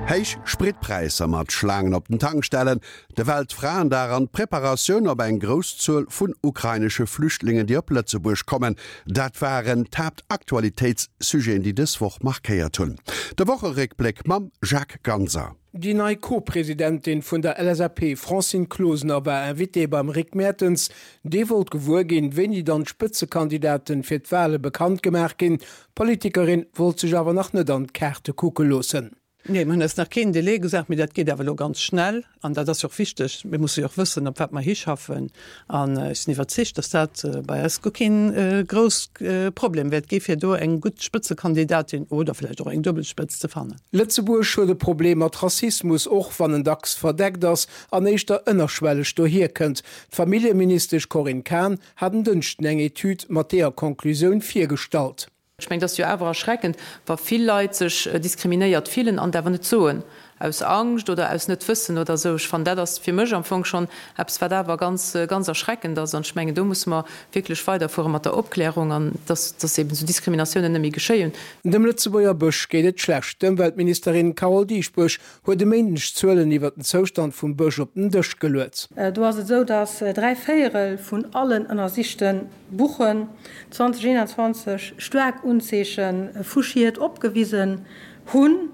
Héich Spritpräisser mat Schlaangen op den Tankstellen, de Weltfraendag an d'Preparatioun op eng grouss Zuel vun ukrainesche Flüchtlingen, déi op Lëtzebuerg kommen, dat waren d'Haaptaktualitéitssujeten, déi dës Woch markéiert hunn. De Wocheréckbléck mam Jacques Ganser. Déi nei Co-Presidentin vun der LSAP Francine Closener war Invitée beim Rick Mertens. Dee wollt gewuer ginn, wéini dann d'Spëtzekandidaten fir d'Wale bekannt gemaach ginn. D'Politikerin wollt sech awer nach net an d'Kaarte kucke loossen. Nee, mir hunn eis nach keen Delai gesat, mee dat geet awer elo ganz schnell an dat ass jo och wichteg. Mir musse jo och wëssen, op wat mer hischaffen an ech sinn iwwerzeegt, datt dat bei eis guer keen grouss Problem wäert gi fir do eng gutt Spëtzekandidatin oder vläicht och eng duebel Spëtz ze fannen. Lëtzebuerg huet e Problem mat Rassismus, och wann en dacks verdeckt ass an éischter ënnerschwelleg dohierkënnt. D'Familljeministesch Corinne Cahen hat en Dënschden eng Etüd mat deeër Conclusioun virgestallt. Ech mengen, et ass jo awer erschreckend, wa vill Leit sech diskriminéiert fillen an et awer net soen, aus Angscht oder aus Net-Wëssen oder esou. Ech fannen, dat ass fir mech am Fong schonn eppes, wat awer ganz, ganz erschreckend ass. An ech mengen, do musse mer wierklech weiderfuere mat der Opklärung an dass, dass eben esou Diskriminatiounen net méi geschéien. Dem Lëtzebuerger Bësch geet et schlecht. D'Ëmweltministerin Carole Dieschbourg huet e Méindeg Zuelen iwwer den Zoustand vum Bësch op den Dësch geluet. Do ass et esou, datt 3 Véierel vun allen ënnersichte Buchen 2021 staark Unzeeche vu Schied opgewisen hunn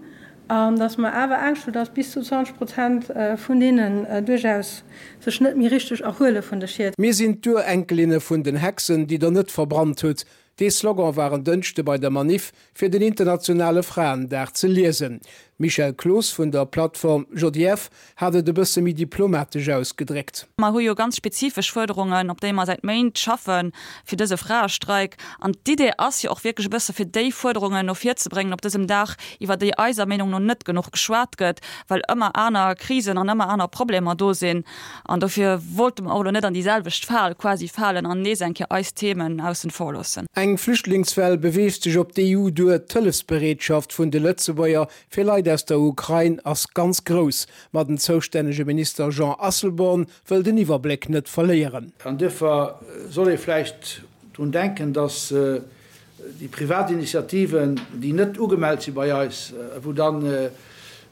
an datt mer awer Angscht hunn, datt bis zu 20 Prozent vun deenen duerchaus sech net méi richteg erhuele vun de Schied. Mir sinn d'Urenkelinne vun den Hexen, déi der net verbrannt hutt. Dee Slogan war en Dënschde bei der Maniff fir den internationale Fraendag ze liesen. D'Michèle Cloos vun der Plattform JIF hat et e bësse méi diplomatesch ausgedréckt. Mer hu jo ganz spezifesch Fuerderungen, op déi mer säit Méint schaffe fir dëse Fraestreik. An d'Idee ass jo och wierklech e bësse fir déi Fuerderungen no vir ze bréngen op dësem Dag, iwwer déi eiser Meenung no net genuch geschwat gëtt, well ëmmer aner Krisen an ëmmer aner Problemer do sinn. An dofir wollte mer och elo net an déi selwecht Fal quasi falen an nees eng Kéier eis Themen aussen vor loossen. Eng Flüchtlingswell beweegt sech op d'EU duer. D'Hëllefsbereetschaft vun de Lëtzebuerger fir Leit aus der Ukrain ass ganz grouss. Ma den zoustännege Minister Jean Asselborn wëll den Iwwerbléck net verléieren. An duerfir soll ee vläicht drun denken, dass déi privat Initiativen, déi net ugemellt si bei eis, wou da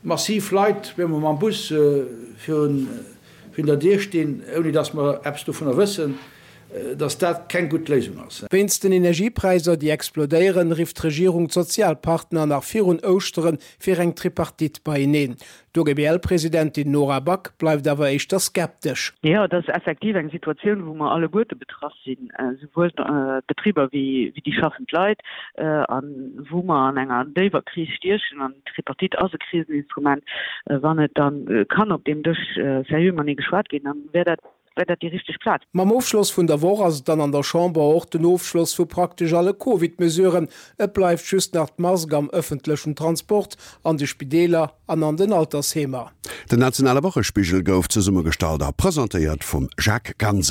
massiv Leit op eemol mam Bus virun der Dier stinn, ouni dass mer eppes dovunner wëssen, dass dat keng gutt Léisung ass. Wéinst den Energiepräisser, déi explodéieren, rifft d'Regierung d'Sozialpartner nach virun Ouschtere fir eng Tripartite beieneen. D'OGBL-Presidentin Nora Back bleift awer éischter skeptesch. Jo, et ass effektiv eng Situatioun, wou mer alleguerte betraff sinn, esouwuel d'Betriber wéi déi schaffend Leit, a wou mer an enger déiwer Kris stiechen. An d'Tripartite ass e Kriseninstrument. Wann et da kann op deem Dësch seriö matenee geschwat ginn, da wär dat Wär dat déi richteg Plaz? Mam Ofschloss vun der Woch ass et dann an der Chamber och den Ofschloss vu praktesch alle Covid-Mesuren. Et bleift just nach d'Mask am ëffentlechen Transport, an de Spideeler an an den Altersheemer. Den nationale Wochespigel gouf zesummegestallt a presentéiert vum Jacques Ganser.